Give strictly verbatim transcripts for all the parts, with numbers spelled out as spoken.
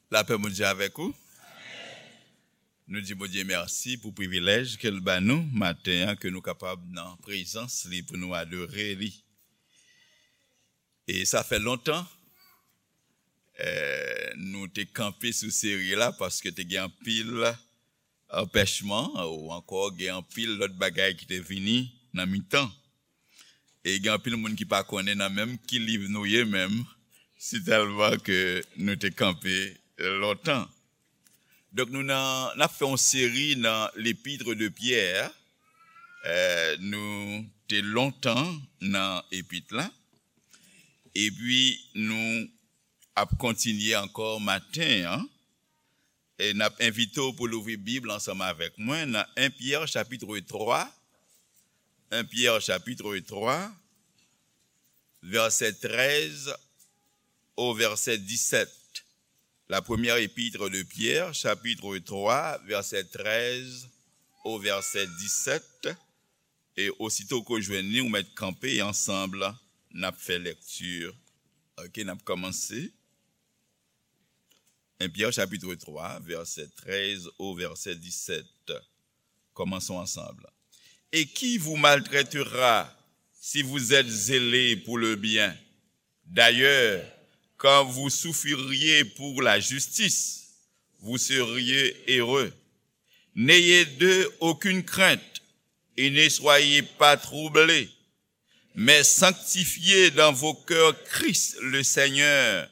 Lapè Bondye avèk ou. Nou di Bondye mèsi pou privilèj ke l ba nou maten an, ke nou kapab nan prezans li pou nou adore li. E sa fè lontan, eh, nou te kanpe sou seri la paske te gen anpil anpèchman, ou ankò gen anpil lòt bagay ki te vini nan mitan. E gen anpil moun ki pa konnen nan menm ki liv nou ye menm, si tèlman ke nou te kanpe lontan. Donk nou nan, n ap fè yon seri nan L'Épître de Pierre. Eh, nou te lontan nan epit la. Epi nou ap kontinye ankò maten an. E n ap envite w pou louvri Bib ansanm avèk mwen nan en Pyè chapitre twa, en Pyè chapitre twa, vèsè trèz o vèsè disèt. La première épître de Pierre, chapitre trois, verset treize au verset dix-sept. E osito ke w jwenn li, ou mèt kanpe e ansanm n ap fè lèkti. Ok, n ap kòmanse. En Pierre chapitre trois, verset treize au verset dix-sept. Commençons ensemble. Et qui vous maltraitera si vous êtes zélé pour le bien ? D'ailleurs, quand vous souffririez pour la justice, vous seriez heureux. N'ayez d'eux aucune crainte et ne soyez pas troublés, mais sanctifiez dans vos cœurs Christ le Seigneur,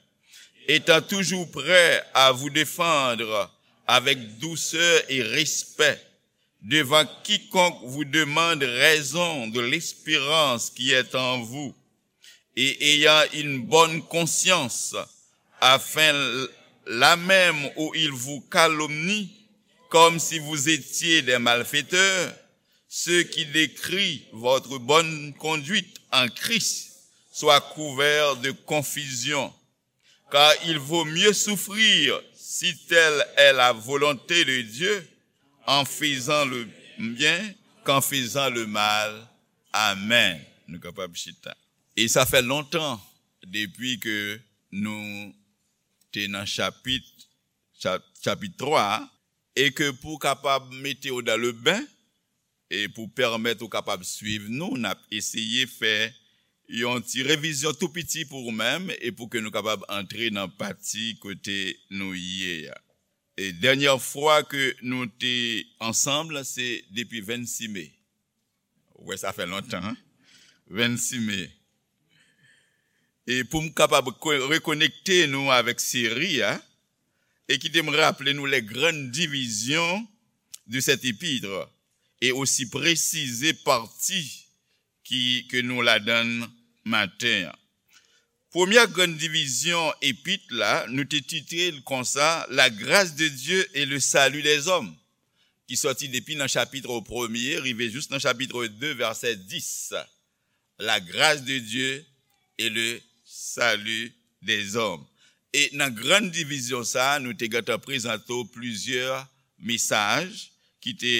étant toujours prêt à vous défendre avec douceur et respect devant quiconque vous demande raison de l'espérance qui est en vous, et ayant une bonne conscience, afin, là même où ils vous calomnient, comme si vous étiez des malfaiteurs, ceux qui décrient votre bonne conduite en Christ soient couverts de confusion. Car il vaut mieux souffrir, si telle est la volonté de Dieu, en faisant le bien qu'en faisant le mal. Amen. Nou kapab chita. E sa fè lontan depi ke nou te nan chapit, chap-, chapit twa a, e ke pou w kapab mete w dans le bain, e pou pèmèt ou kapab swiv nou, n ap eseye fè yon ti revizyon tou piti pou ou menm e pou ke nou kapab antre nan pati kote nou ye a. E dènyè fwa ke nou te ansanm, se depi vennsis me. Ou wè, sa fè lontan, hein? Vennsis me. E pou m kapab ko-, rekonekte nou avèk seri a, e kite m raple nou les grandes divisions de cette épître, e osi presize pati ki, ke nou ladan l maten an. Premyè grann divizyon epit la, nou te titre l konsa, La grâce de Dieu et le salut des hommes, ki sòti depi nan chapit premye, rive jis nan chapit de, vèsè dis. La grâce de Dieu et le salut des hommes. E nan grann divizyon sa a, nou te gentan prezante w plizyè mesaj ki te,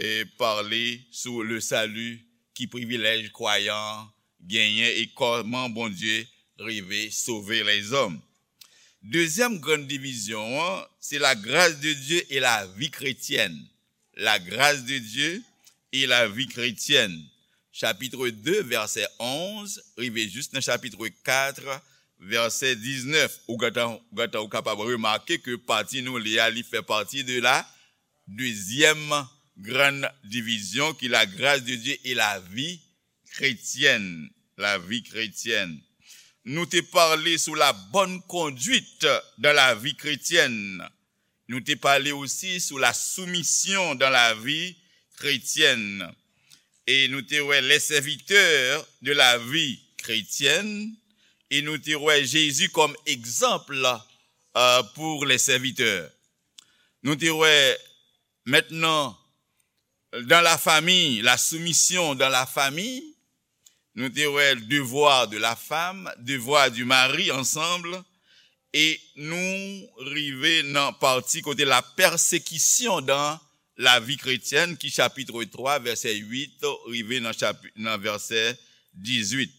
eh, pale sou le salut, ki privilèj kwayan genyen e kòman Bondye rive sove lèzòm. Dezyèm grann divizyon an, se la grâce de Dieu et la vie chrétienne. La grâce de Dieu et la vie chrétienne. Chapit de, vèsè onz, rive jis nan chapit kat, vèsè diznèf. Ou gentan, ou gentan ou kapab remake ke pati nou li a, li fè pati de la dezyèm grann divizyon, ki la grâce de Dieu et la vie chrétienne. La vie chrétienne. Nou te pale sou la bonne conduite dans la vie chrétienne. Nou te pale osi sou la soumission dans la vie chrétienne. E nou te wè les serviteurs de la vie chrétienne. E nou te wè Jésus comme exemple, euh, pour les serviteurs. Nou te wè maintenant dans la famille, la soumission dans la famille. Nou te wè devoir de la femme, devoir du mari ansanm. E nou rive nan pati kote la persécution dans la vie chrétienne, ki chapit twa, vèsè uit, rive nan chapi-, nan vèsè dizuit.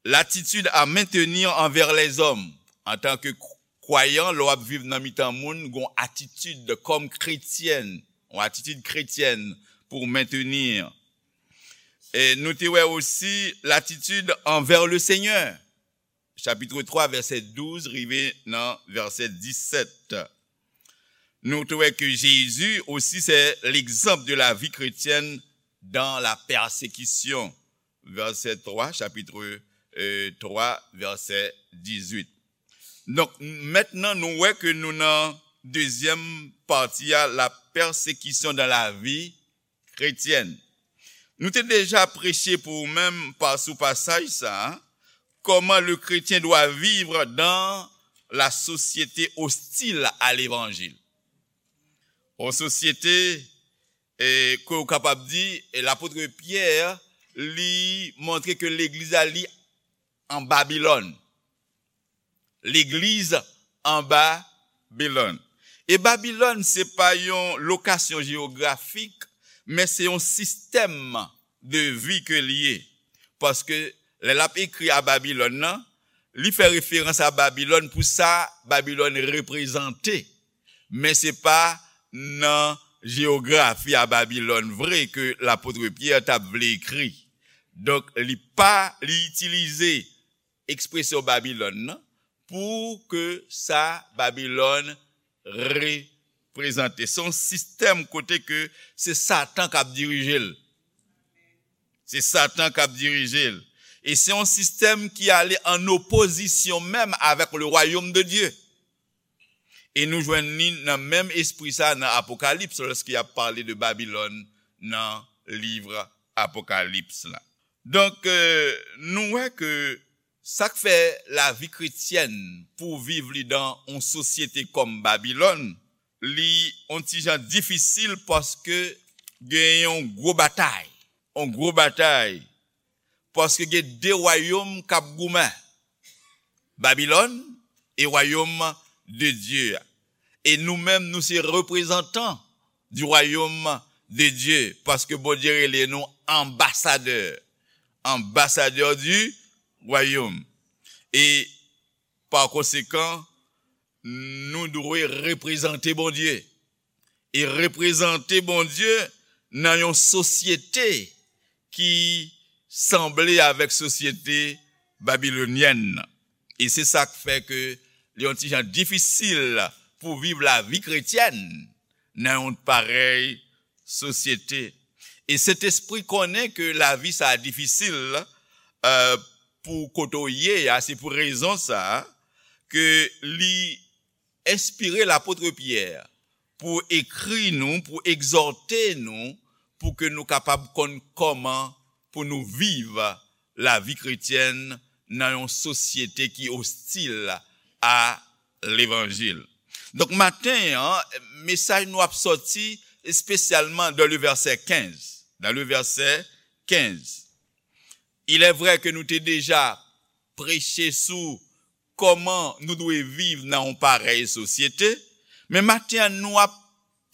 L'attitude à maintenir envers les hommes, antanke k-, kwayan, lè w ap viv nan mitan moun, gen yon atitid kòm kretyen, yon atitid kretyen pou w mentni. E nou te wè osi latitid anvè le Senyè, chapit twa, vèsè douz, rive nan vèsè disèt. Nou te wè ke Jezi osi, se l'exemple de la vie chrétienne dans la persécution. Vèsè twa, chapit, euh, twa, vèsè dizuit. Donk, mentnan, nou wè ke nou nan dezyèm pati a, la persécution dans la vie chrétienne. Nou te deja preche pou ou menm pa, sou pasaj sa a, comment le chrétien doit vivre dans la société hostile à l'évangile. Yon sosyete, e, ke w kapab di, e, lapot Pyè, li montre ke legliz la, li an Babilòn. Legliz an Babilòn. E Babilòn, se pa yon lokasyon jewografik, men se yon sistèm de vi ke l ye. Paske lè l ap ekri a Babilòn nan, li fè referans a Babilòn pou sa Babilòn reprezante. Men se pa nan jewografi a Babilòn vre ke lapot Pyè t ap vle ekri. Donk, li pa, li itilize ekspresyon Babilòn nan pou ke sa Babilòn reprezante. Se yon sistèm kote ke se Satan k ap dirije l. Se Satan k ap dirije l. E se yon sistèm ki ale an opozisyon menm avèk le royaume de Dieu. E nou jwenn li nan menm espri sa nan Apokalips, lòske y ap pale de Babilòn nan liv Apokalips la. Donk, euh, nou wè ke sa k fè lavi kretyèn pou viv li dan yon sosyete kòm Babilòn, li yon ti jan difisil paske gen yon gwo batay. Yon gwo batay. Paske gen de wayòm k ap goumen. Babilòn e wayòm de Dye a. E nou menm, nou se reprezantan du royaume de Dieu, paske Bondye rele nou anbasadè, anbasadè du royaume. E pa konsekan, nou dwe reprezante Bondye. E reprezante Bondye nan yon sosyete ki sanble avèk sosyete babilonyèn nan. E se sa k fè ke li yon ti jan difisil pou viv lavi kretyèn nan yon parèy sosyete. E Sentespri konnen ke lavi sa a difisil, euh, pou kote w ye a, se pou rezon sa a ke li enspire lapot Pyè pou ekri nou, pou egzòte nou, pou ke nou kapab konn kòman pou nou viv lavi kretyèn nan yon sosyete ki ostil a levanjil. Donk, maten an, mesaj nou ap sòti espesyalman dans le verset quinze. Dans le verset quinze. Il est vrai que nou te deja preche sou kòman nou dwe viv nan yon parèy sosyete, men maten an, nou ap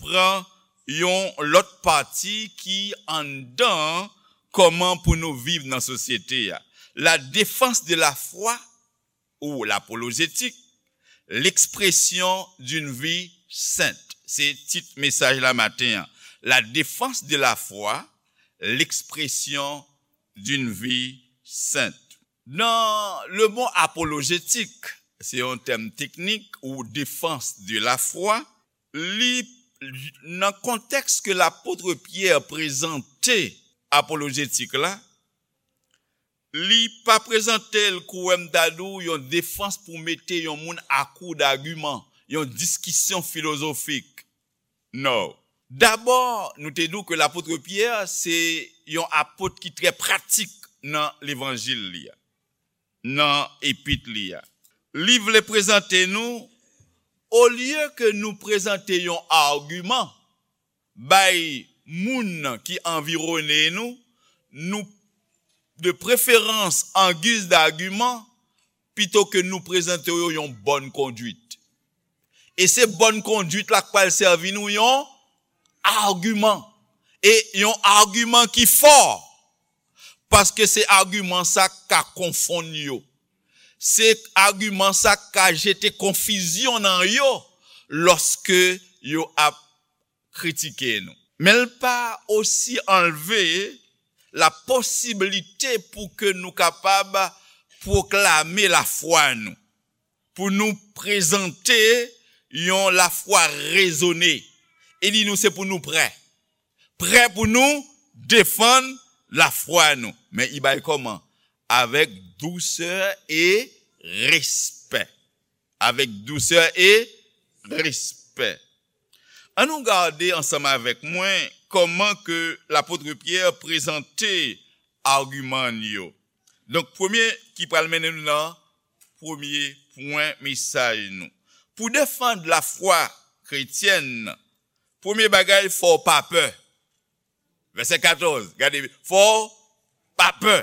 pran yon lòt pati ki anndan kòman pou nou viv nan sosyete a. La défense de la foi ou l'apologétique, l'expression d'une vie sainte. Se tit mesaj la maten an. La défense de la foi, l'expression d'une vie sainte. Dans le mot apologétique, se yon tèm teknik ou défense de la foi, li nan kontèks ke lapot Pyè prezante apolojetik la, li pa prezante l kou wè m ta di w yon defans pou mete yon moun a kou d'agiman, yon diskisyon filozofik. Non. Dabò, nou te di w ke lapot Pyè se yon apot ki trè pratik nan levanjil li a, nan epit li a. Li vle prezante nou, olye ke nou prezante yon agiman bay moun ki anviwone nou, nou de preferans an giz d'agiman, pito ke nou prezante yo yon bòn konduit. E se bòn konduit la k pral sèvi nou yon agiman. E yon agiman ki fò. Paske se agiman sa k ka konfonn yo. Se agiman sa k ka jete konfizyon nan yo lòske yo ap kritike nou. Men l pa osi anlve la posiblite pou ke nou kapab pwoklame lafwa nou, pou nou prezante yon lafwa rezone. E li di nou se pou nou prè. Prè pou nou defann lafwa nou. Men i bay kòman? Avèk dousè e respè. Avèk dousè e respè. An nou gade ansanm avèk mwen kòman ke lapot Pyè prezante agiman yo. Donk, premye ki pral mennen nou nan premye pwen mesaj nou. Pou defann lafwa kretyèn, premye bagay, fò w pa pè. Vèsè katòz, gade, fò w pa pè.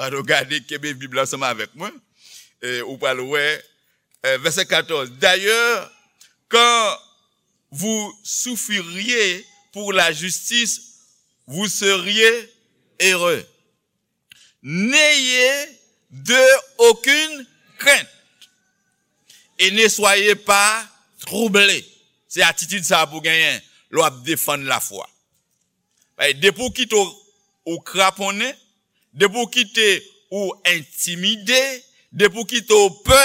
An nou gade, kenbe Bib la ansanm avèk mwen. E, ou pral wè, e, vèsè katòz. D'ailleurs, quand vous souffririez pour la justice, vous seriez heureux. N'ayez d'aucune crainte et ne soyez pas troublés. Se atitid sa a pou genyen lè w ap defann lafwa. Paske depi w kite w, ou kraponnen, depi w kite ou entimide, depi w kite w pè,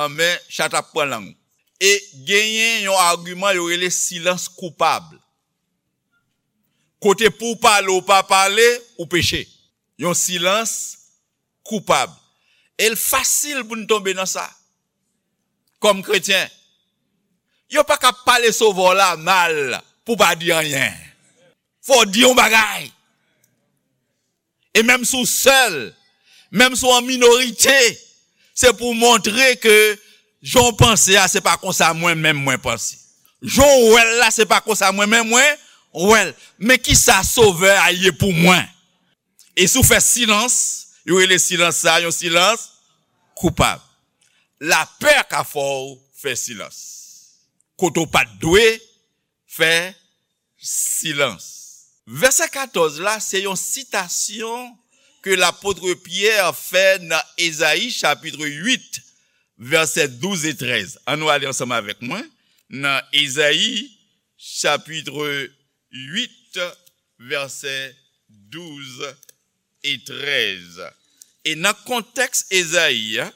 anben, chat ap pran lang ou. E genyen yon agiman yo rele silans koupab. Kote pou w pale, ou pa pale, ou peche. Yon silans koupab. E l fasil pou n tonbe nan sa. Kòm kretyen, yo pa ka pale Sovè w la mal pou w pa di anyen. Fò w di yon bagay. E menm si w sèl, menm si w an minorite, se pou w montre ke jan w panse a, se pa konsa mwen menm mwen panse. Jan w wè l la, se pa konsa mwen menm mwen wè l. Men kisa Sovè a ye pou mwen? E si w fè silans, yo rele silans sa a yon silans koupab. Lapè ka fè w fè silans. Kote w pa t dwe fè silans. Vèsè katòz la, se yon sitasyon ke lapot Pyè fè nan Ezayi chapit uit, vèsè douz e trèz. An nou ale ansanm avèk mwen nan Ezayi chapit uit, vèsè douz e trèz. E nan kontèks Ezayi a,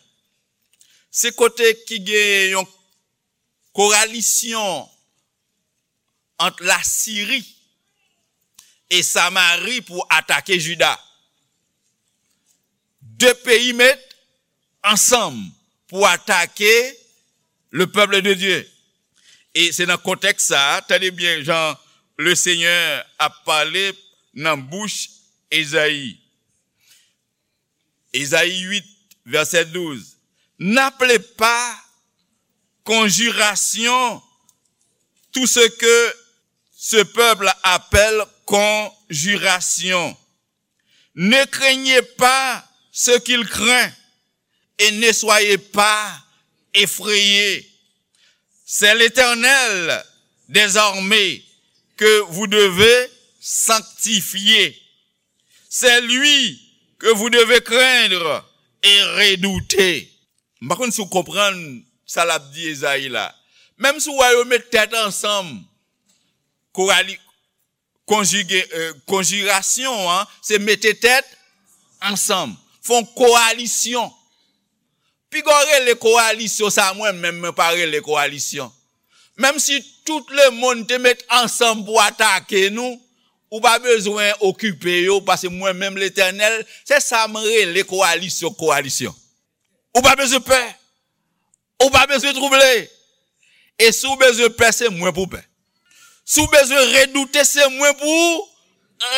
se kote ki gen yon kowalisyon ant Lasiri e Samari pou atake Jida. De peyi met ansanm pou atake le peuple de Dieu. E se nan kontèks sa a, tande byen jan le Senyè ap pale nan bouch Ezayi. Ezayi uit, vèsè douz. N'appelez pas conjuration tout ce que ce peuple appelle conjuration. Ne craignez pas ce qu'il craint et ne soyez pas effrayés. C'est l'Éternel des armées que vous devez sanctifier. C'est lui que vous devez craindre et redouter. M pa konn si w konprann sa l ap di Ezayi la. Menm si w wè yo met tèt ansanm, kowali-, konjige, euh, konjirasyon an, se mete tèt ansanm. Fè yon kowalisyon. Piga w rele kowalisyon sa, mwen menm, mwen pa rele kowalisyon. Menm si tout lemonn te met ansanm pou atake nou, ou pa bezwen okipe yo, paske mwen menm, Letènèl, se sa m rele kowalisyon, kowalisyon. Ou pa bezwen pè. Ou pa bezwen twouble. E si w bezwen pè, se mwen pou pè. Si w bezwen redoute, se mwen pou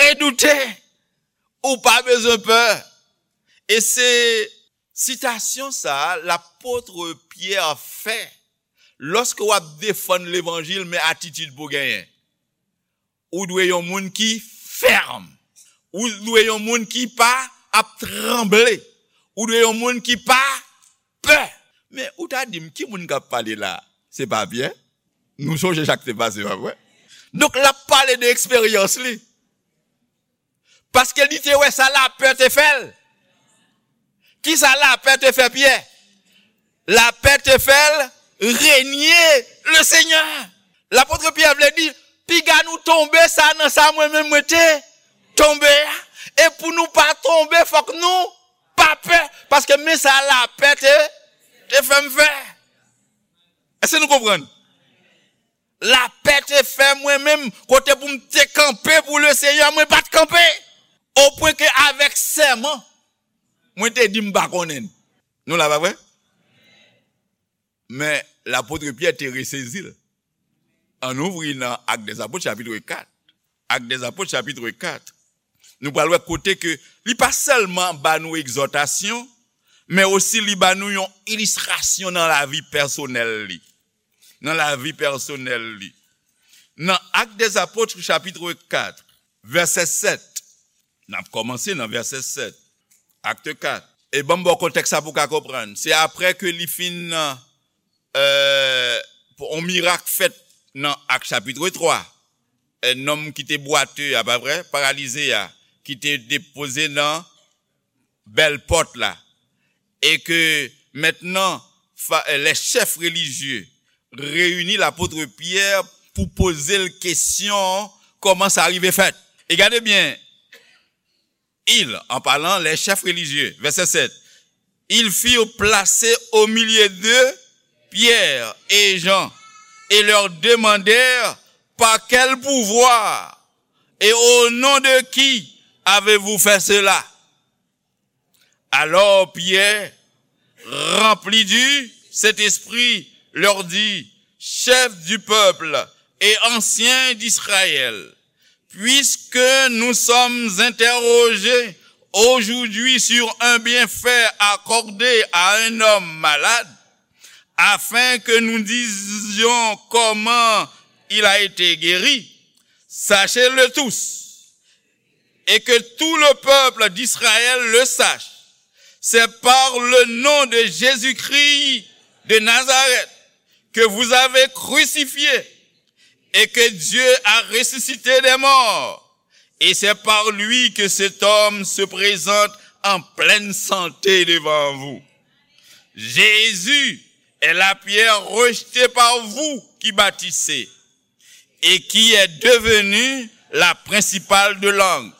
redoute. Ou pa bezwen pè. E se sitasyon sa a lapot Pyè fè lòske w ap defann levanjil, men atitid pou genyen. Ou dwe yon moun ki fèm. Ou dwe yon moun ki pa ap tranble. Ou dwe yon moun ki pa pè. Men ou ta di m, ki moun k ap pale la? Se pa Pyè? Nou sonje sa k te pase, pa vre? Donk, l ap pale de eksperyans li. Paske li te wè sa lapè te fè l. Kisa lapè te fè Pyè? Lapè te fè l renye le Senyè. Lapot Pyè vle di, piga nou tonbe sa nan sa mwen menm mwen te tonbe a. E pou nou pa tonbe, fòk nou pa pè. Paske men sa lapè te, te fè m fè. Èske nou konprann? Lapè te fè mwen menm, kote pou m te kanpe pou le Senyè, mwen pa t kanpe. Opwen ke avèk sèman, mwen te di m pa konnen. Nou la, pa vre? Men lapot Pyè te resezi l. Ann ouvri nan Actes des Apôtres, chapit kat. Actes des Apôtres, chapit kat. Nou pral wè kote ke li pa sèlman ba nou egzòtasyon, men osi li ba nou yon ilistrasyon nan lavi pèsonèl li. Nan lavi pèsonèl li. Nan Actes des Apôtres, chapit kat, vèsè sèt. N ap kòmanse nan vèsè sèt. Actes quatre. E ban m ba w kontèks sa pou w ka konprann. Se apre ke li fin, euh, yon mirak fèt nan Actes chapit twa. Un homme ki te bwate a, pa vre, paralize a, ki te depoze nan bèl pòt la. E ke mentnan, fa- les chefs religieux reyini lapot Pyè pou poze l kesyon kòman sa rive fèt. E gade byen, ils, en parlant, les chefs religieux, vèsè sèt, ils firent placer au milieu d'eux Pierre et Jean et leur demandèrent par quel pouvoir et au nom de qui avez-vous fait cela? Alors Pierre, rempli du Saint-Esprit, leur dit, chefs du peuple et anciens d'Israël, puisque nous sommes interrogés aujourd'hui sur un bienfait accordé à un homme malade, afin que nous disions comment il a été guéri, sachez-le tous, et que tout le peuple d'Israël le sache, c'est par le nom de Jésus-Christ de Nazareth que vous avez crucifié et que Dieu a ressuscité des morts. Et c'est par lui que cet homme se présente en pleine santé devant vous. Jésus est la pierre rejetée par vous qui bâtissez et qui est devenue la principale de l'angle.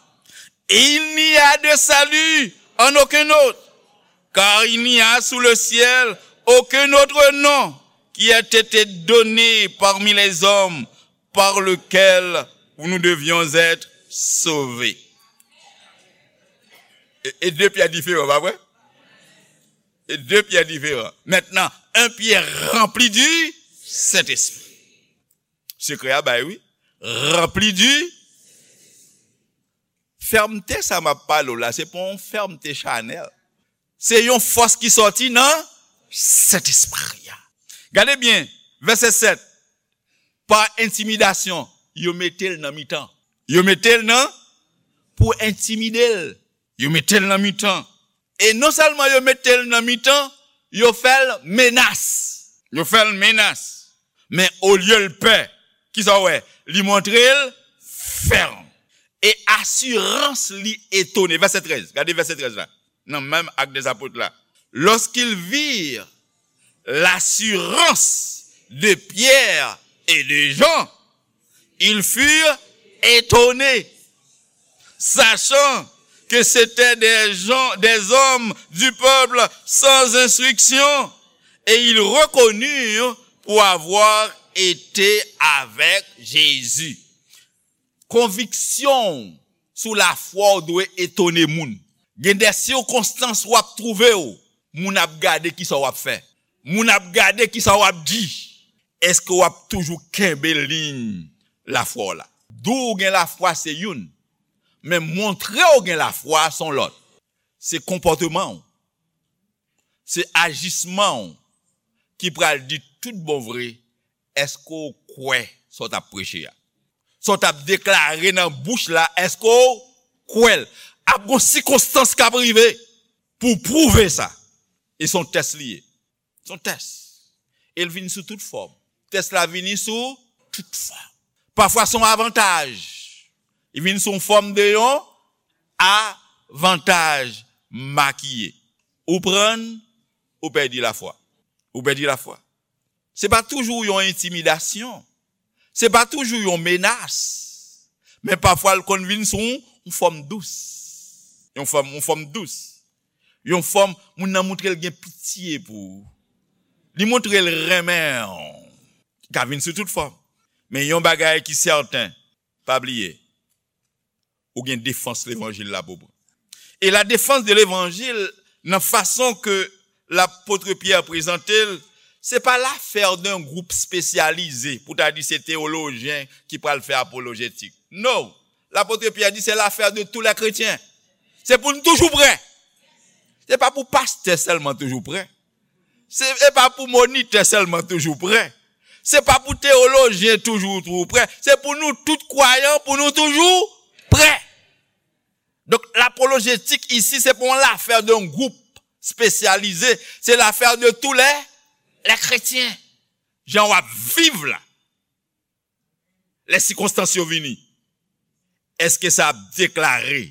Et il n'y a de salut en aucun autre, car il n'y a sous le ciel aucun autre nom qui ait été donné parmi les hommes par lequel nous devions être sauvés. E, e de Pyè diferan, pa vre? E de Pyè diferan. Maintenant, un Pierre rempli du Saint-Esprit. Sekrè a bay, wi. Rempli du. Fèmte sa m ap pale w la, se pa yon fèmte chanèl. Se yon fòs ki sòti nan Sentespri a. Gade byen, vèsè sèt. Pa entimidasyon, yo mete l nan mitan. Yo mete l nan, pou entimide l. Yo mete l nan mitan. E non sèlman yo mete l nan mitan, yo fè l menas. Yo fè l menas. Men olye l pè, kisa w wè? Li montre l fèm. E asirans li etone. Vèsè trèz. Gade vèsè trèz la. Nan menm Actes des Apôtres la. Lorsqu'ils virent l'assurance de Pierre et de Jean, ils furent étonnés, sachant que c'étaient des gens, des hommes du peuple sans instruction, et ils reconnurent pour avoir été avec Jésus. Konviksyon w sou lafwa w dwe etone moun. Gen de sikonstans w ap twouve w, moun ap gade kisa w ap fè. Moun ap gade kisa w ap di. Èske w ap toujou kenbe liy lafwa w la? Di w gen lafwa se youn, men montre w gen lafwa se yon lòt. Se konpòteman w, se ajisman w ki pral di tout bon vre èske w kwè sa w t ap preche a. Sa w t ap deklare nan bouch la, èske w kwè l? Ap gen sikonstans k ap rive pou pwouve sa. E se yon tès li ye. Se yon tès. E l vin sou tout fòm. Tès la vini sou tout fòm. Pafwa se yon avantaj. Li vin sou yon fòm de yon avantaj makiye. Ou pran, ou pèdi lafwa. Ou pèdi lafwa. Se pa toujou yon entimidasyon. Se pa toujou yon menas. Men pafwa l konn vin sou yon fòm dous. Yon fòm, yon fòm dous. Yon fòm, moun nan montre l gen pitye pou ou. Li montre l renmen w. Li ka vin sou tout fòm. Men yon bagay ki sèten, pa bliye, ou gen defans levanjil la pou pran. E la défense de l'évangile, nan fason ke lapot Pyè prezante l, se pa l'affaire d'un groupe spécialisé, pou ta di se teyolojyen ki pral fè apolojetik. No, lapot Pyè di se l'affaire de tous les chrétiens. Se pou n toujou prè. Se pa pou pastè sèlman toujou prè. Se e pa pou monitè sèlman toujou prè. Se pa pou teyolojyen toujou, toujou prè. Se pou nou tout kwayan, pou nou toujou prè. Donk, lapolojetik isi, se pa yon lafè de yon gwoup espesyalize. Se lafè de tou lè, lè kretyen. Jan w ap viv la. Lè sikonstans yo vini, èske sa ap deklare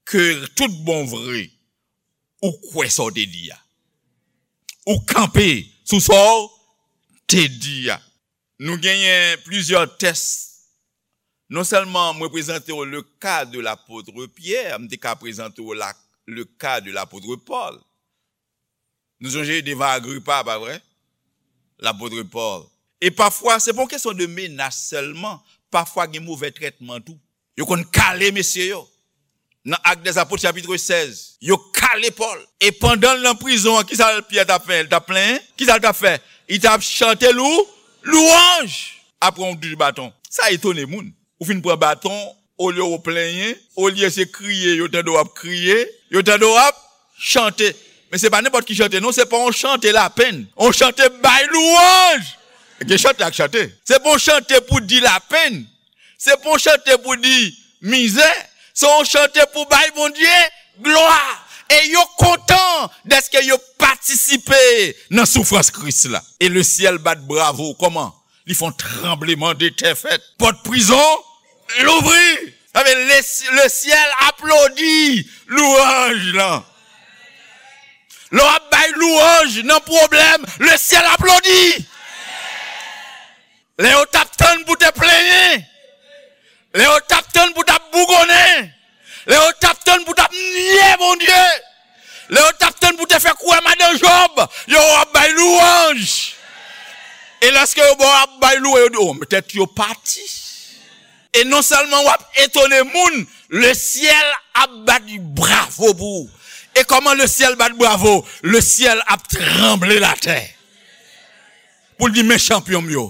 ke tout bon vre, ou kwè sa w te di a? Ou kanpe sou sa w te di a? Nou genyen plizyè tès. Non sèlman mwen prezante w le ka de lapot Pyè, m te ka prezante w la, le ka de lapot Pòl. Nou sonje devan Agripa, pa vre? Lapot Pòl. E pafwa, se pa yon kesyon de menas sèlman. Pafwa, gen move trètman tou. Yo konn kale mesye yo. Nan Actes des Apôtres, chapit sèz, yo kale Pòl. E pandan l nan prizon an, kisa Pyè t ap fè? L t ap plenyen? Kisa l t ap fè? Li t ap chante lou, lwanj. Apre yon touch baton. Sa etone moun. Ou fin pran baton, olye w plenyen, olye se kriye, yo tande w ap kriye, yo tande w ap chante. Men se pa nenpòt ki chante, non, se pa yon chante lapenn. Yon chante bay lwanj. Gen chante ak chante. Se pa yon chante pou di lapenn. Se pa yon chante pou di mizè. Se yon chante pou bay Bondye glwa. E yo kontan dèske yo patisipe nan soufrans Kris la. E le syèl bat bravo. Kòman? Li fè yon tranbleman de tè fèt. Pòt prizon louvri. Sa vle le, le syèl aplodi lwanj lan. Lè w ap bay lwanj nan pwoblèm, le syèl aplodi. Lè yo t ap tann pou te plenyen, lè yo t ap tann pou t ap bougonnen, lè yo t ap tann pou t ap nye Bondye, lè yo t ap tann pou te fè kwè madan Jòb, yo w ap bay lwanj. E lèske yo bò ap bay lwanj, yo di, o, tèt yo pati. E non sèlman w ap etone moun, le syèl ap bat bravo pou ou. E kòman le syèl bat bravo? Le syèl ap tranble latè. Pou l di, men chanpyon m yo.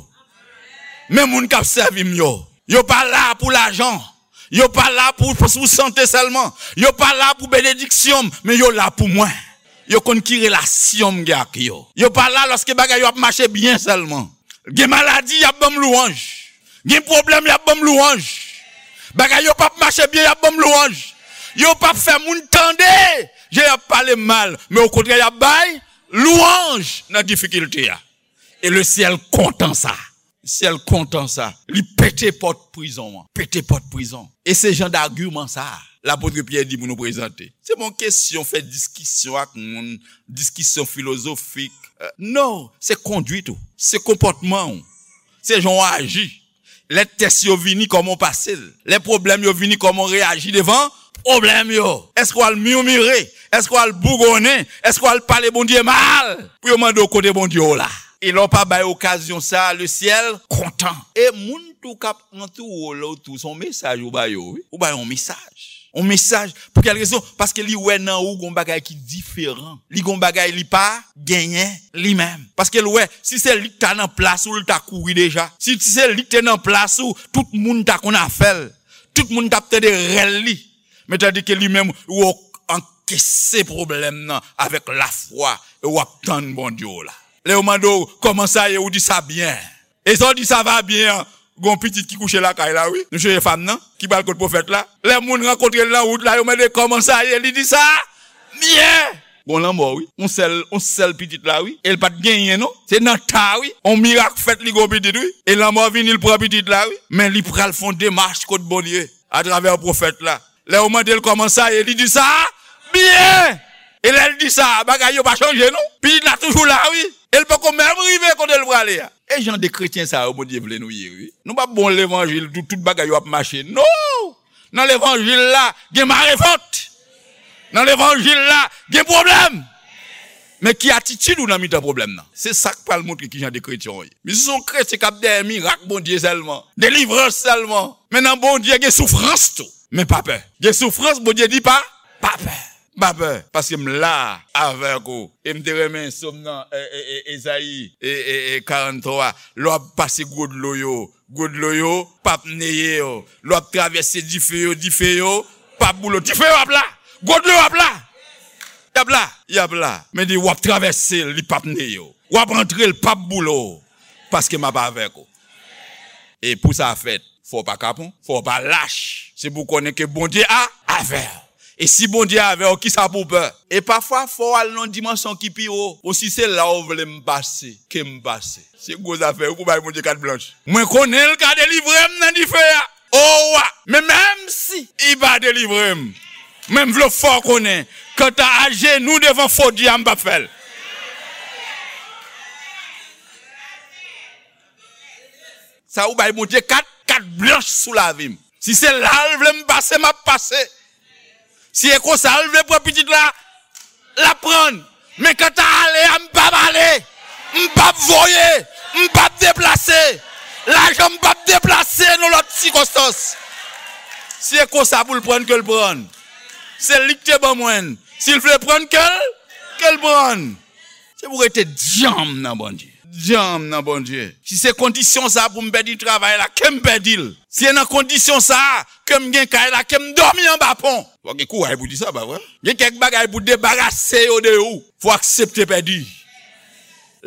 Men moun k ap sèvi m yo. Yo pa la pou lajan. Yo pa la pou, pou, pou sante sèlman. Yo pa la pou benediksyon m, men yo la pou mwen. Yo konn ki relasyon m gen ak yo. Yo pa la lòske bagay yo ap mache byen sèlman. Gen maladi, y ap ban m lwanj. Gen pwoblèm, y ap ban m lwanj. Bagay yo p ap mache byen, y ap ban m lwanj. Yo p ap fè moun tande jan y ap pale m mal, men okontrè, y ap bay lwanj nan difikilte a. E le syèl kontan sa. Syèl kontan sa. Li pete pòt prizon an. Pete pòt prizon. E se jan dagiman sa a lapot Pyè di pou nou prezante. Se pa yon kesyon fè diskisyon ak moun, diskisyon filozofik. Euh, non, se kondwit ou. Se konpòtman ou. Se jan w aji. Lè tès yo vini, kòman w pase l? Lè pwoblèm yo vini, kòman w reyaji devan pwoblèm yo? Èske w al mimire? Èske w al bougonnen? Èske w al pale Bondye mal? Pou yo mande w kote Bondye w la. E lè w pa bay okazyon sa a, le syèl kontan. E moun tou k ap antoure w la tou, se yon mesaj ou ba yo, wi. Ou ba yo yon mesaj. Yon mesaj. Pou kèl rezon? Paske li wè nan ou gon bagay ki diferan. Li gon bagay li pa genyen li menm. Paske l wè, si se li k ta nan plas ou, l ta kouri deja. Si se li k te nan plas ou, tout moun ta konn afè l. Tout moun t ap tande rèl li. Men tandike li menm, ou ankese pwoblèm nan avèk lafwa, e w ap tann Bondye w la. Lè yo mande w, kòman sa ye? Ou di sa byen. E sa w di sa va byen an, gon pitit ki kouche lakay la, wi. Nou chèche fanm nan, ki pral kot pwofèt la. Lè moun rankontre l nan wout la, yo mande kòman sa ye, li di sa byen. Gon lanmò, wi. On sèl, on sèl pitit la, wi. E l pa t genyen, non. Se nan ta, wi. On mirak fèt, li gon pitit, wi. E lanmò vini, l pran pitit la, wi. Men li pral fè on demach kot Bondye, atravè pwofèt la. Lè yo mande l kòman sa ye, li di sa byen. E lè l di sa, bagay yo pa chanje, non. Pitit la toujou la, wi. E l poko menm rive kote l prale a. E jan de kretyen sa yo Bondye vle nou ye, wi. Nou p ap bon levanjil, tout, tout bagay yo ap mache. Non! Nan levanjil la, gen marevant. Nan levanjil la, gen pwoblèm. Men ki atitid ou nan mitan pwoblèm nan? Se sa k pral montre ki jan de kretyen w ye. Men si se yon kretyen k ap dèyè mirak Bondye sèlman, delivrans sèlman, men nan Bondye gen soufrans tou. Men pa pè. Gen soufrans, Bondye di pa, pa pè. Pa pè, paske m la avèk ou. E m te renmen sòm nan, e, e, e, Ezayi, e, e, e, karant twa. Lè w ap pase gwo dlo yo, gwo dlo yo p ap neye w. Lè w ap travèse dife yo, dife yo p ap boule w. Dife yo ap la. Gwo dlo yo ap la. Y ap la. Y ap la. Men di w ap travèse l, li p ap neye w. W ap rantre, l p ap boule w. Paske m ap avèk ou. E pou sa fèt, fò w pa kapon, fò w pa lach. Se pou w konnen ke Bondye a avè w. E si Bondye avè w, kisa pou w pè? E pafwa, fò w al nan yon dimansyon ki pi wo. Bon, si se la w vle m pase, ke m pase. Se gwo zafè, wi, pou bay Bondye kat blanch. Mwen konnen l ka delivre m nan dife a. O wa, men menm si li pa delivre m, men m vle w fè w konnen, kanta ajenou devan fo dye a, m p ap fè l. Sa ou bay Bondye kat, kat blanch sou lavi m. Si se la l vle m pase, m ap pase. Si e konsa l vle pran pitit la, l ap pran. Men kanta ale a, m p ap ale. M p ap voye. M p ap deplase. Lajan m p ap deplase nan lòt sikonstans. Si e konsa pou l pran, ke l pran. Se li k te ban mwen l. Si l vle pran, ke l, ke l pran. Se pou rete dyanm nan Bondye. Dyanm nan Bondye. Si se kondisyon sa pou m pèdi travay la, ke m pèdi l. Si se nan kondisyon sa ke m gen kay la, ke m dòmi anba pon. Fò gen kouraj pou di sa, pa vre? Gen kèk bagay pou debarase yo de ou. Fò aksepte pèdi.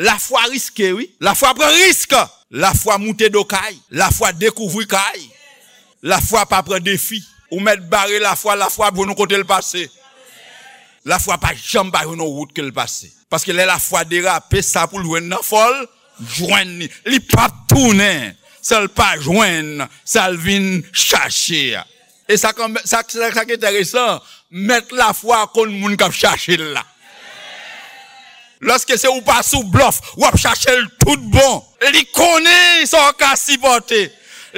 Lafwa riske, wi. Lafwa pran risk. Lafwa moute do kay. Lafwa dekouvri kay. Lafwa pa pran defi. Ou mèt bare lafwa, lafwa ap jwenn ou kote l pase. Lafwa pa janm pa jwenn yon wout ke l pase. Paske lè lafwa derape, sa pou l jwenn nan, fò l jwenn li. Li p ap tounen san l pa jwenn sa l vin chache a. E sa k, sa, sa, sa k enteresan, mèt lafwa konn moun k ap chache l la. Lòske se ou pa sou blòf, w ap chache l tout bon. Li konnen sa w ka sipòte.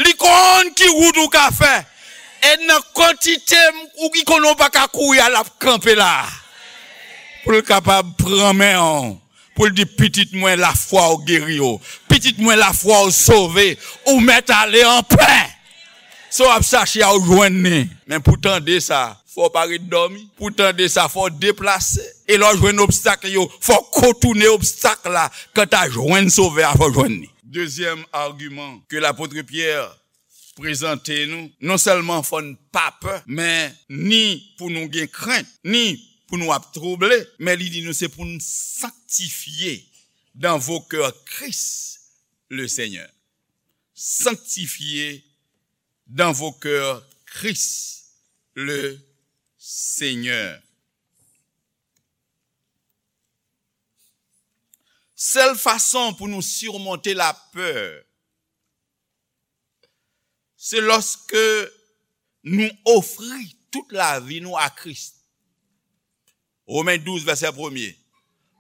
Li konn ki wout ou ka fè. E nan kantite ou ki konnen w pa ka kouri a, l ap kanpe la. Pou l kapab pran men w. Pou l di, pitit mwen, lafwa w geri w. Pitit mwen, lafwa w sove. Ou mèt ale anpè. Sa w ap chache a, ou jwenn li. Men pou tande sa, fò w pa ret dòmi. Pou tande sa, fò w deplase. E lè w jwenn obstak yo, fò w kontounen obstak la. Kanta jwenn Sovè a, fò w jwenn li. Dezyèm agiman ke lapot Pyè prezante nou, non sèlman fò n pa pè, men ni pou nou gen krent, ni pou nou ap twouble, men li di nou se pou n sanctifier dans vos cœurs Christ le Seigneur. Sanctifier dans vos cœurs Christ le Seigneur. Sèl fason pou nou simonte lapè, se lòske nou ofri tout lavi nou a Kris. Romen douz, vèsè premye.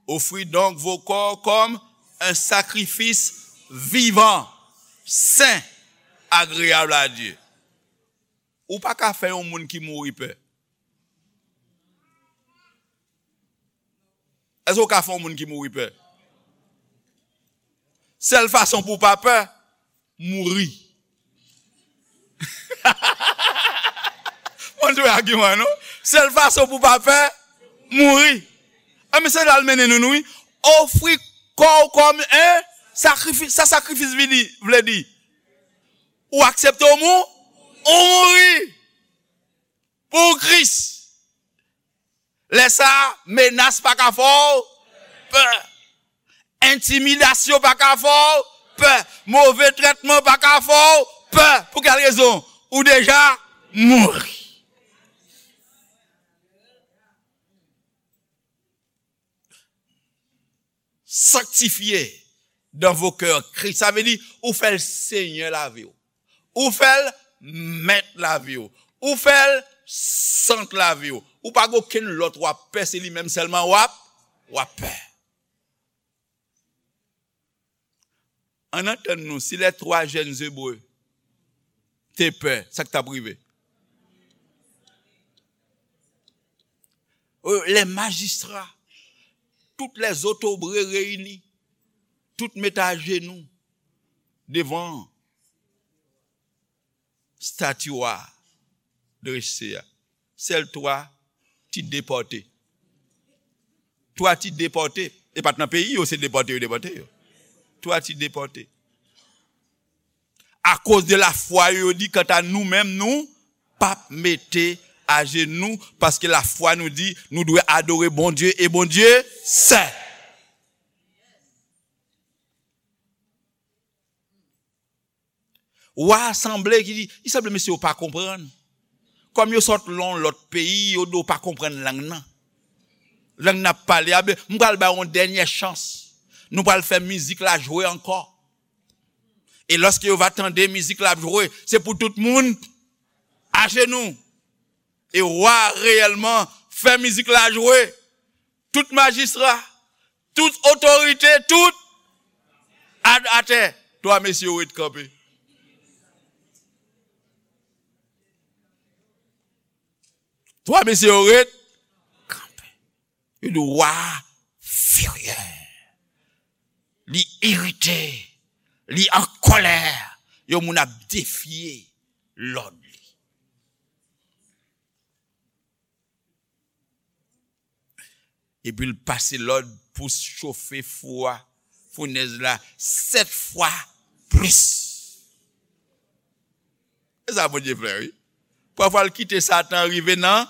Offrez donc vos corps comme un sacrifice vivant, saint, agréable à Dieu. Ou pa ka fè yon moun ki mouri pè. Èske w ka fè yon moun ki mouri pè? Sèl fason pou w pa pè, mouri. Mwen jwe agiman, non? Sèl fason pou w pa pè, mouri. A, men se la l mennen nou, nou, wi. Ofri kò w kòm en sakrifis. Sa sakrifis vini, vle di? Ou aksepte w mou-, ou mouri pou Kris. Lè sa a, menas pa ka fè w pè. Entimidasyon pa ka fè w pè. Move trètman pa ka fè w pè. Pou kèl rezon? Ou deja mouri. Sanctifiez dans vos cœurs Christ. Sa vle di, ou fè l Senyè lavi w. Ou fè l mèt lavi w. Ou fè l sant lavi w. Ou pa gen okenn lòt w ap pè, se li menm sèlman w ap, w ap pè. Ann antann nou, si les trois jeunes Hébreux te pè, sa k t ap rive? Euh, les magistrats, toutes les autorités réunies, tout met ajenou devan stati a drese a. Sèl twa ti depòte. Twa ti depòte. E pa t nan peyi yo, se depòte yo depòte yo. Twa ti depòte. Akoz de lafwa yo, yo di, kanta nou menm, nou p ap mete ajenou, paske lafwa nou di, nou dwe adore Bondye, e Bondye sèl. Wa a sanble ki di, li sanble mesye yo pa konprann. Kòm yo sot lan yon lòt peyi, yo di yo pa konprann lang nan. Lang n ap pale a, ben, m pral ba yo yon dènye chans. Nou pral fè mizik la jwe ankò. E lòske yo va tande mizik la ap jwe, se pou tout moun ajenou. E wa a reyèlman fè mizik la jwe. Tout majistra, tout otorite, tout a-, atè. Twa mesye yo ret kanpe. Twa mesye yo ret kanpe. Yo di wa a firye. Li irite. Li an kòlè. Yon moun ap defye lòd li. Epi l pase lòd pou chofe fou a, founèz la, sèt fwa plis. E sa Bondye fè, wi. Pafwa l kite Satan rive nan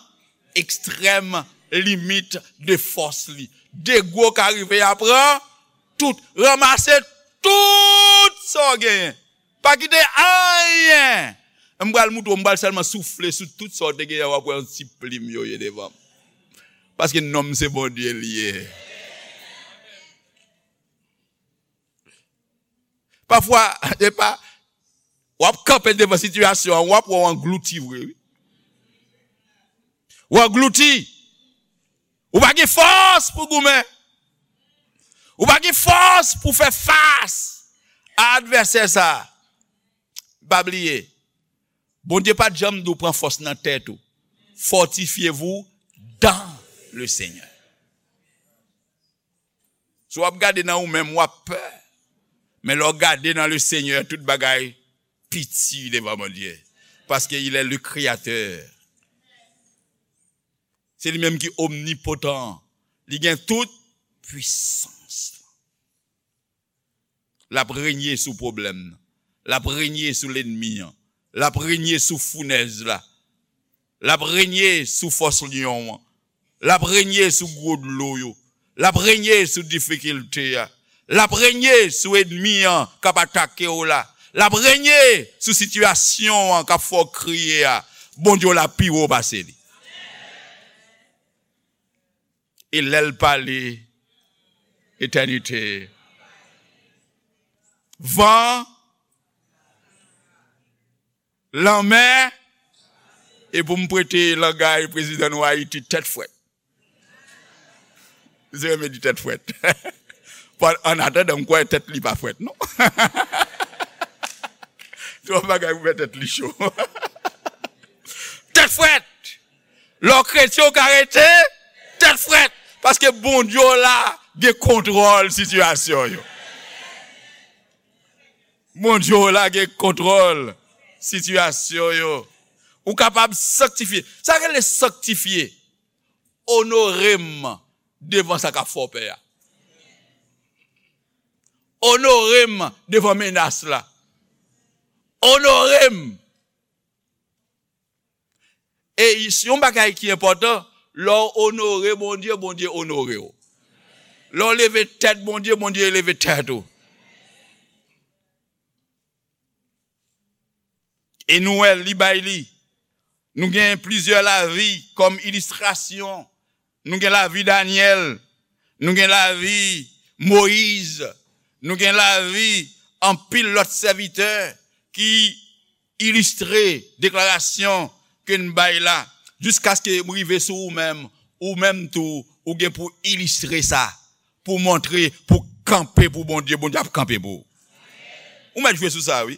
ekstrèm limit de fòs li. Degwo ka rive a pran tout, ranmase tout sa w genyen. Pa kite anyen. M pral moutre w, m pral sèlman soufle sou tout sa w te genyen, w ap wè yon ti plim yo ye devan m. Paske nonm se Bondye l ye. Pafwa, e pa, w ap kanpe devan sitiyasyon an, w ap wè w anglouti vre, wi. W anglouti. Ou pa gen fòs pou goumen. Ou pa gen fòs pou fè fas a advèsè sa a. Pa bliye, Bondye pa t janm di w pran fòs nan tèt ou. Fortifiez-vous dans le Seigneur. Si w ap gade nan ou menm, w ap pè. Men lè w gade nan le Seigneur, tout bagay piti devan Bondye. Paske il est le créateur. Se li menm ki omnipotan. Li gen tout pwisans. L ap renye sou pwoblèm nan. L ap renye sou lènmi an. L ap renye sou founèz la. L ap renye sou fòs lyon an. L ap renye sou gwo dlo yo. L ap renye sou difikilte a. L ap renye sou ènmi an k ap atake w la. L ap renye sou sitiyasyon an k ap fè w kriye a. Bondye w la pi wo pase li. E lè l pale, etènite. Van, lanmè, e pou m prete langay prezidan nou Ayiti, tèt frèt. Misye renmen di tèt frèt. Bon, an atandan, m kwè tèt li pa frèt, non. Twòp bagay pou fè tèt li cho. Tèt frèt! Lè w kretyen, w ka rete tèt frèt. Paske Bondye w la gen kontwòl sitiyasyon yo. Bondye w la gen kontwòl sitiyasyon yo. Ou kapab sanktifye. Sa rele sanktifye. Onore m devan sa k ap fè w pè a. Onore m devan menas la. Onore m. E yon bagay ki enpòtan, lè w onore Bondye, Bondye onore w. Lè w leve tèt Bondye, Bondye leve tèt ou. E nou wè, li bay li. Nou gen plizyè lavi kòm ilistrasyon. Nou gen lavi Danyèl, nou gen lavi Moyiz, nou gen lavi anpil lòt sèvitè ki ilistre deklarasyon ke n bay la. Jiskaske m rive sou ou menm, ou menm tou, ou gen pou ilistre sa, pou montre, pou kanpe pou Bondye, Bondye ap kanpe pou ou. Ou mèt jwe sou sa, wi.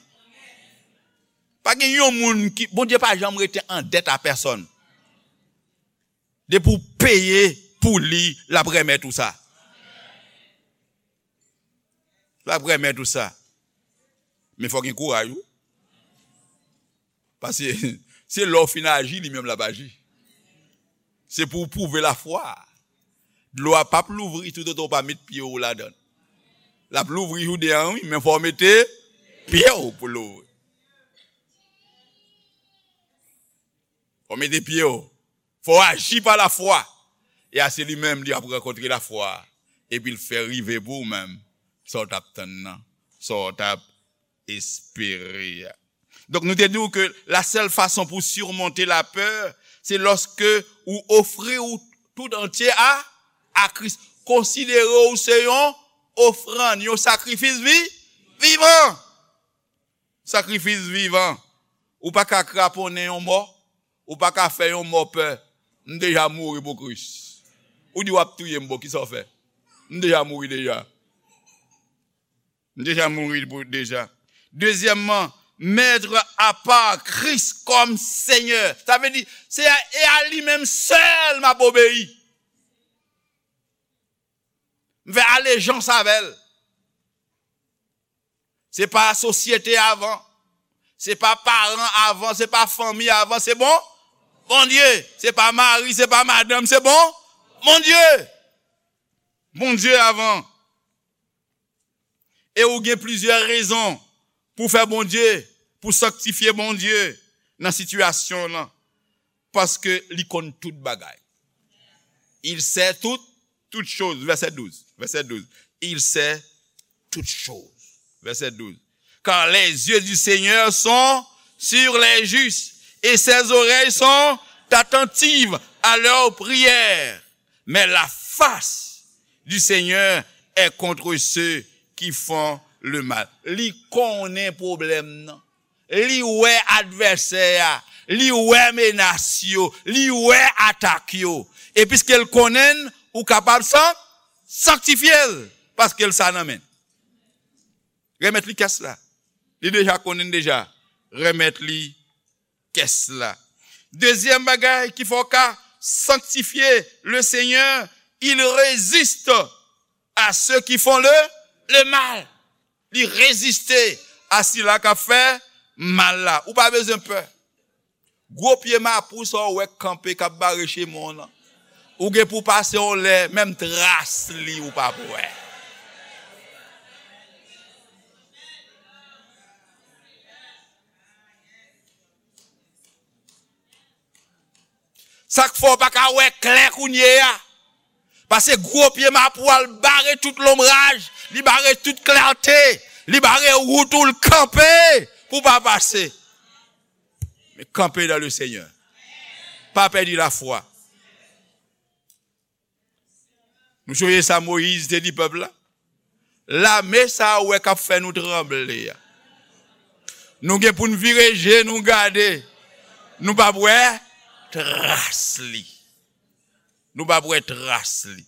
Pa gen yon moun ki, Bondye pa janm rete an dèt a pèsòn. Depi w peye pou li, l ap remèt ou sa. L ap remèt ou sa. Men fò gen kouraj, wi. Paske se lè w fin aji, li menm l ap aji. Se pou w pwouve lafwa. Dlo a p ap louvri toutotan w pa met pye w ladan l. L ap louvri jou de an, wi, men fò w mete pye w pou l louvri. Fò w mete pye w. Fò w aji pa lafwa. E a se li menm, li ap rankontre lafwa. Epi l fè rive pou w menm sa w t ap tann nan, sa w t ap espere a. Donk, nou te di w ke la sèl fason pou surmonter la peur, se lòske ou ofri ou tout antye a, a Kris. Konsidere w se yon ofrann, yon sakrifis vi, vivan. Sakrifis vivan. Ou pa ka kraponnen yon mò, ou pa ka fè yon mò pè. M deja mouri pou Kris. Ou di w ap touye m, bon, kisa w fè? M deja mouri deja. M deja mouri pou, deja. Dezyèmman, mettre à part Christ comme Seigneur. Sa vle di, se a, e a li menm sèl m ap obeyi. M fè alejans avè l. Se pa sosyete avan. Se pa paran avan, se pa fanmi avan, se bon Bondye. Se pa mari, se pa madanm, se bon Bondye. Bondye avan. E ou gen plizyè rezon pou fè Bondye, pou sanktifye Bondye nan sitiyasyon w lan. Paske li konn tout bagay. Il sait tout, toutes choses. Verset douze. Verset douze. Il sait toutes choses. Verset douze. Car les yeux du Seigneur sont sur les justes, et ses oreilles sont attentives à leurs prières. Mais la face du Seigneur est contre ceux qui font le mal. Li konnen pwoblèm nan. Li wè advèsè a. Li wè menas yo. Li wè atak yo. E piske l konnen l, ou kapab san-, sanktifye l. Paske l sa nan men l. Remèt li kès la. Li deja konnen l deja. Remèt li kès la. Dezyèm bagay ki fè w ka sanktifye le Seigneur, il résiste à ceux qui font le, le mal. Li reziste a sila k ap fè mal la. Ou pa bezwen pè. Gwo pye mapou sa w wè k kanpe k ap bare chemen w lan. Ou gen pou pase yon lè, menm tras li ou p ap wè. Sa k fè w pa ka wè klè kounye a. Paske gwo pye mapou a l bare tout lonbraj, li bare tout klète, li bare wout ou, l kanpe pou w pa pase. Men kanpe dans le Seigneur. Pa pèdi lafwa. Nou sonje sa Moyiz te di pèp la? Lame sa a ou wè k ap fè nou tranble a. Nou gen pou n vire je nou gade. Nou p ap wè tras li. Nou p ap wè tras li.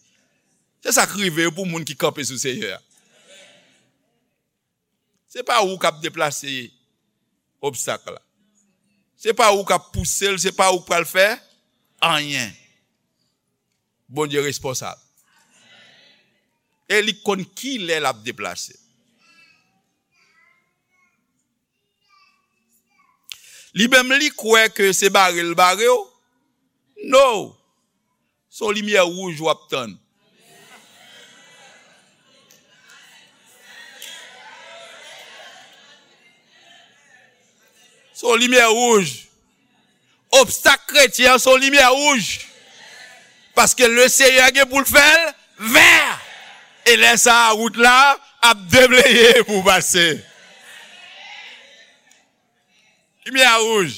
Se sa k rive pou moun ki kanpe sou Seyè a. Se pa ou k ap deplase obstak la. Se pa ou k ap pouse l, se pa ou k pral fè anyen. Bondye responsab. E li konn ki lè l ap deplase. Li menm li kwè ke se bare l bare w. No. Se yon limyè wouj w ap tann. Se yon limyè wouj. Obstak kretyen an se yon limyè wouj. Paske le Seyè gen pou l fè l vè. E lè sa a, wout la ap debleye pou w pase. Limyè a wouj.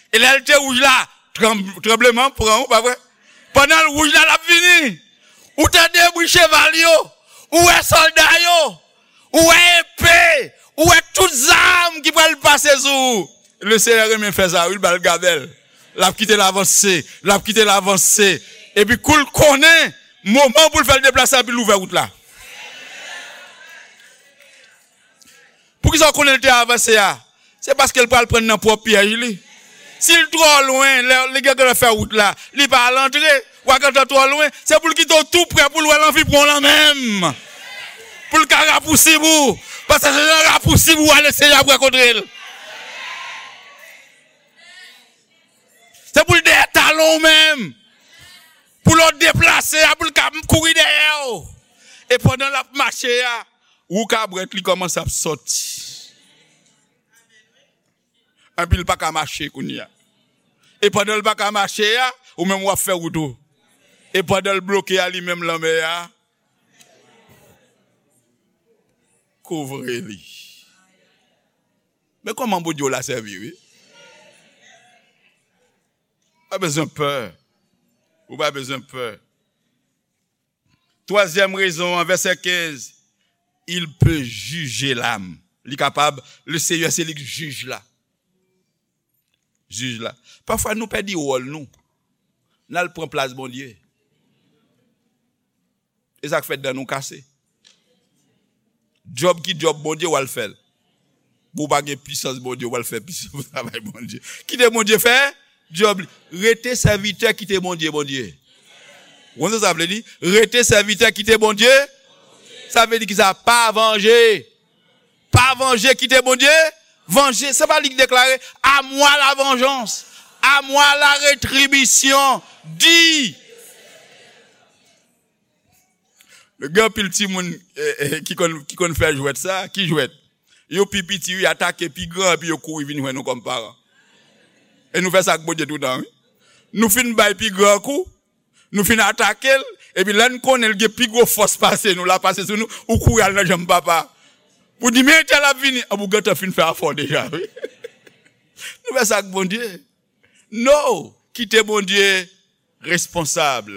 E lè l te wouj la, tranb-, tranbleman pran w, pa vre? Pandan l wouj la, l ap vini. Ou tande bri cheval yo, ou wè sòlda yo, ou wè epe, ou wè tout zam ki pral pase sou ou. Le Seyè renmen fè sa, wi, l ba l gabèl. L ap kite l avanse, l ap kite l avanse. Epi kou l konnen moman pou l fè l deplase a, epi l ouvè wout la. Poukisa w konnen l te avanse a? Se paske l pral pran nan pwòp pyèj li. Si l twò lwen, lè li gentan fè wout la, li pa al antre, w a gentan twò lwen, se pou l kite w tou prè pou l wè l anvi pran w lan menm. Pou l ka rapousib ou. Paske se nan rapousib ou ale Senyè ap rankontre l. Se pou l dèyè talon w menm. Pou lè w deplase a, pou l ka kouri dèyè w. E pandan l ap mache a, wou kabrèt li kòmanse ap sòti. Anpi l pa ka mache kounye a. E pandan l pa ka mache a, ou menm w ap fè wout ou. E pandan l bloke a, li menm lanmè a kouvri li. Men kòman Bondye w la sèvi, wi. Pa bezwen pè. Ou pa bezwen pè. Twazyèm rezon an, vèsè kenz, il peut juger l'âme. Li kapab, le Seyè se li k jij la. Jij la. Pafwa nou pèdi wòl nou. N al pran plas Bondye. E sa k fè dan nou kase. Djòb ki djòb Bondye w al fè l. Bon, ou pa gen pisans Bondye, w al fè pisans travay Bondye. Kite Bondye fè djòb li. Rete sèvitè, kite Bondye, Bondye. Ou konn sa sa vle di? Rete sèvitè, kite Bondye. Sa vle di ki sa? Pa vanje. Pa vanje, kite Bondye vanje. Se pa li ki deklare, à moi la vengeance, à moi la rétribution, dit. Gen anpil timoun eh, eh, ki konn, ki konn fè jwèt sa. Ki jwèt? Yo pi piti, wi, atake pi gran, epi yo kouri vin jwenn nou kòm paran. E nou fè sa ak Bondye toutan, wi. Nou fin bay pi gran kou, nou fin atake l, epi lè n konnen l gen pi gwo fòs pase nou, l ap pase sou nou, ou kouri al nan janm papa. Pou di, men entèl ap vini, an pou gentan fin fè afè w deja, wi. Nou fè sa ak Bondye. No, kite Bondye responsab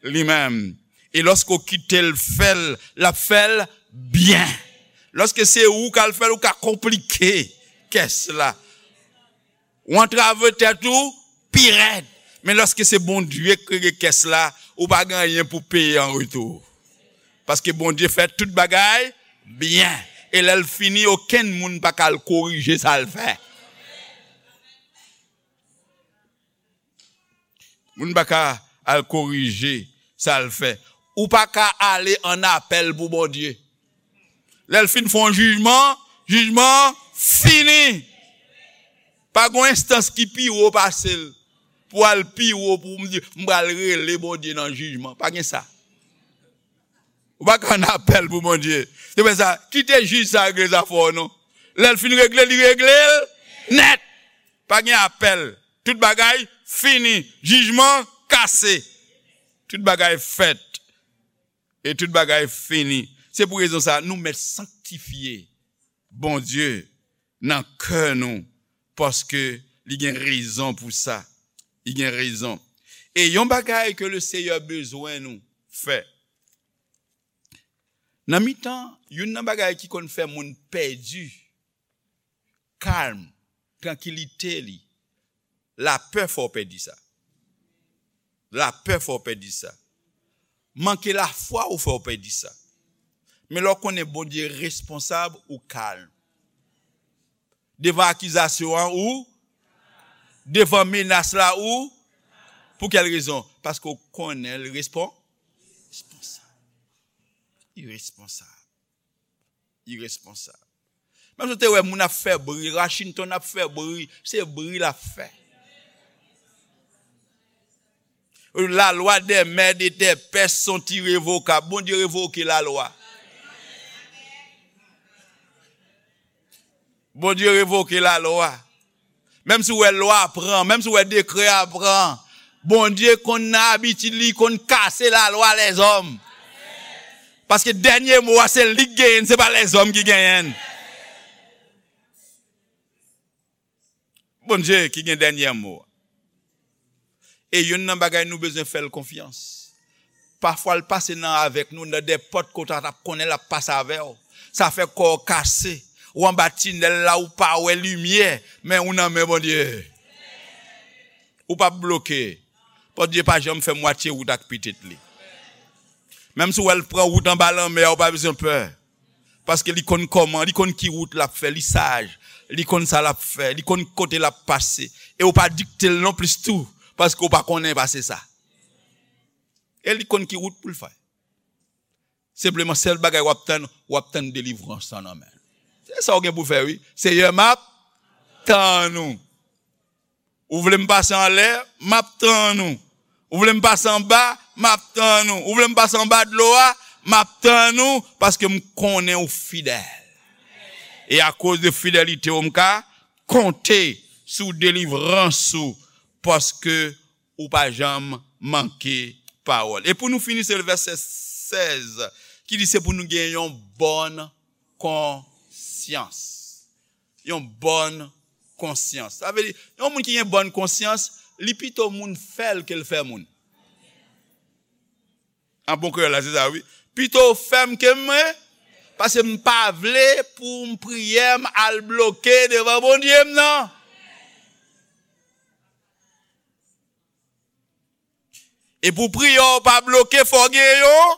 li menm. E lòske w kite l fè l, l ap fè l byen. Lòske se ou k al fè l, ou ka konplike kès la. Ou antrave tèt ou pi rèd. Men lòske se Bondye k rege kès la, ou pa gen anyen pou peye an retou. Paske Bondye fè tout bagay byen. E lè l fini, okenn moun pa ka al korije sa l fè. Moun pa ka al korije sa l fè. Ou pa ka ale an apèl pou Bondye. Lè l fin fè yon jijman, jijman an fini. Pa gen yon enstans ki pi wo pase l pou al pi wo pou m di, m pral rele Bondye nan jijman. Pa gen sa. Ou pa ka an apèl pou Bondye. Se pou sa, kite jij sa regle zafè w non. Lè l fin regle, li regle l nèt. Pa gen apèl. Tout bagay fini. Jijman kase. Tout bagay fèt. E tout bagay fini. Se pou rezon sa, nou mèt sanktifye Bondye nan kè nou, paske li gen rezon pou sa. Li gen rezon. E yon bagay ke le Seyè bezwen nou fè. Nan mitan, youn nan bagay ki konn fè moun pèdi kalm, trankilite li, lapè fè w pèdi sa. Lapè fè w pèdi sa. Manke lafwa ou fè w pèdi sa. Men lè w konnen Bondye responsab, ou kalm. Devan akizasyon an, ou, devan menas la, ou, pou kèl rezon? Paske w konnen l respon-, responsab. Li responsab. Li responsab. Menm si w te wè moun ap fè bri, Washington ap fè bri, se bri l ap fè. La loi des mères et des pères sont irrévocables. Bondye revoke lalwa. Bondye revoke lalwa. Menm si w wè lwa a pran, menm si w wè dekrè a pran, Bondye konn nan abitid li, konn kase lalwa lèzòm. Paske dènye mo a, se li k genyen l, se pa lèzòm ki genyen l. Bondye ki gen dènye mo a. E youn nan bagay nou bezwen fè l konfyans. Pafwa l pase nan avèk nou, nan de pòt kote w t ap konnen l ap pase avè w. Sa fè kò w kase. Ou anba tinèl la, ou pa wè limyè, men ou nan men Bondye. Ou p ap bloke. Bondye pa janm fè mwatye wout ak pitit li. Menm si w wè l pran wout anba lanmè a, ou pa bezwen pè. Paske li konn kòman, li konn ki wout l ap fè, li saj, li konn sa l ap fè, li konn kote l ap pase. E ou pa dikte l non plis tou, paske ou pa konnen pase sa. E li konn ki wout pou l fè. Senpleman, sèl bagay w ap tann, w ap tann delivrans lan nan men l. Se sa w gen pou fè, wi. Seyè, m ap tann ou. Ou vle m pase anlè, m ap tann ou. Ou vle m pase anba, m ap tann ou. Ou vle m pase anba dlo a, m ap tann ou, paske m konnen ou fidèl. E akoz de fidelite w, m ka konte sou delivrans ou, paske ou pa janm manke pawòl. E pou nou fini, se vèsè sèz ki di se pou nou gen yon bòn konsyans. Yon bòn konsyans. Sa vle di, yon moun ki gen bòn konsyans, li pito moun fè l ke l fè moun. An bon kreyòl la, se sa, wi. Pito w fè m ke m, paske m pa vle pou m priyè m al bloke devan Bondye m nan. E pou priyè w pa bloke, fò w gen yon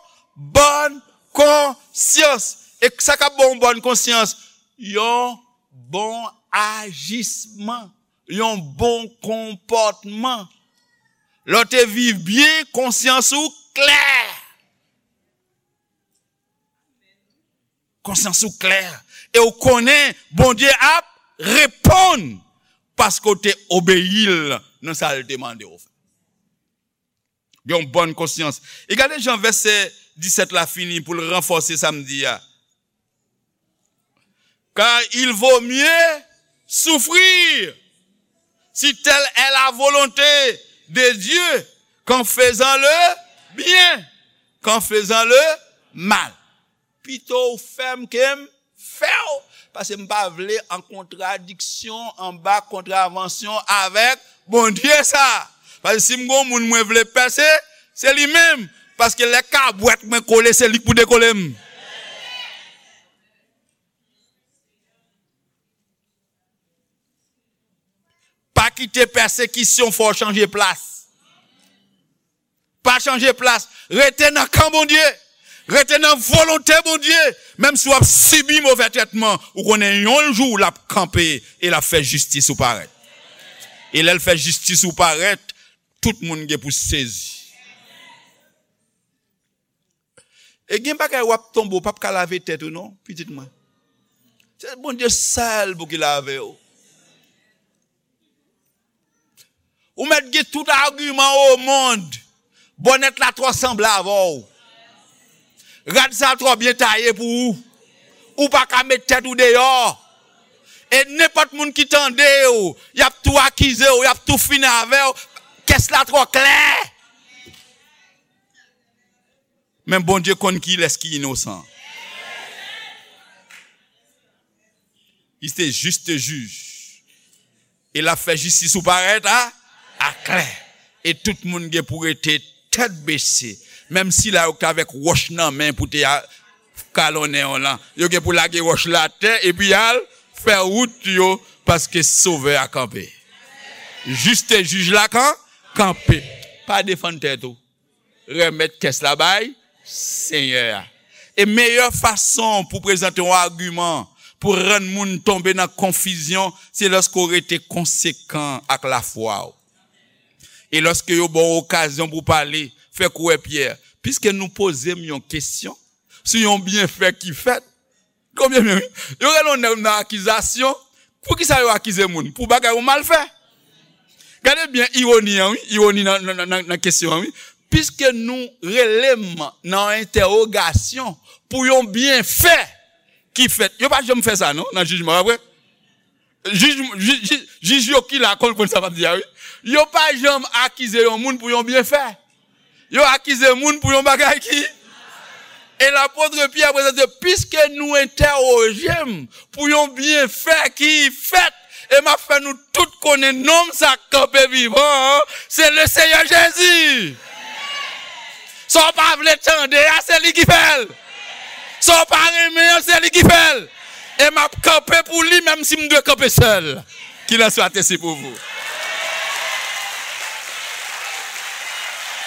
bòn konsyans. E sa k ap ba w yon bòn konsyans? Yon bon ajisman, yon bon konpòtman. Lè w te viv byen, konsyans ou klè. Konsyans ou klè. E w konnen Bondye ap reponn paske w te obeyi l nan sa l te mande w fè. Gen yon bòn konsyans. E gade jan vèsè disèt la fini pou l ranfòse sa m di a. Car il vaut mieux souffrir, si telle est la volonté de Dieu, qu'en faisant le bien, qu'en faisant le mal. Pito w fè m ke m fè w, paske m pa vle an kontradiksyon, anba kontravansyon avèk Bondye sa. Paske si m gon moun mwen vle pèse, se li menm. Paske lè kabwèt mwen kole, se li k pou dekole m. Pa kite pèsekisyon fè w chanje plas. Pa chanje plas. Rete nan kan Bondye. Rete nan volonte Bondye. Menm si w ap sibi movè trètman, ou konnen yon jou l ap kanpe e l ap fè jistis ou parèt. E lè l fè jistis ou parèt, tout moun gen pou sezi. E gen bagay w ap tonbe, w p ap ka lave tèt ou non, pitit mwen. Se Bondye sèl pou ki lave w. Ou mèt gen tout agiman o mond. Bònèt la twò sanble avè w. Rad sa twò byen taye pou ou. Ou pa ka met tèt ou deyò. E nenpòt moun ki tande w, y ap tou akize w, y ap tou fini avè w. Kès la twò klè. Men Bondye konn kilès ki inosan. Li se juste juge. E l ap fè jistis ou parèt a, aklè. E tout moun gen pou rete tèt bese. Menm sila yo k t avèk wòch nan men pou te a-, kalonnen w lan, yo gen pou lage wòch la atè epi al fè wout yo, paske Sovè a kanpe. Juste juge la kan-, kanpe. Pa defann tèt ou. Remèt kès la bay Senyè a. E meyè fason pou prezante yon agiman pou rann moun tonbe nan konfizyon, se lòske w rete konsekan ak lafwa w. E lòske yo ba w okazyon pou w pale, fè kou wè Pyè, piske nou poze m yon kesyon sou yon byenfè ki fèt, Konbyen men, wi? Yo rele yon nèg nan akizasyon. Poukisa yo akize moun? Pou bagay ou mal fè. Gade byen ironi an, wi. Ironi nan, nan, nan, nan, nan kesyon an, wi. Piske nou rele m nan yon entèwogasyon pou yon byenfè ki fèt. Yo pa janm fè sa, non, nan jijman, pa vre? Jij, jij, jij, jij yo ki la konn, konn sa m ap di a, wi. Yo pa janm akize yon moun pou yon byenfè. Yo akize moun pou yon bagay ki. E lapot Pyè prezante, piske nou entèwoje m pou yon byenfè ki fèt, e m ap fè nou tout konnen nonm sa k kanpe vivan an, se le Seyè Jezi. Sa w pa vle tande a, se li ki fè l. Sa w pa renmen an, se li ki fè l. E m ap kanpe pou li, menm si m dwe kanpe sèl. Qu'il en soit ainsi pour vous.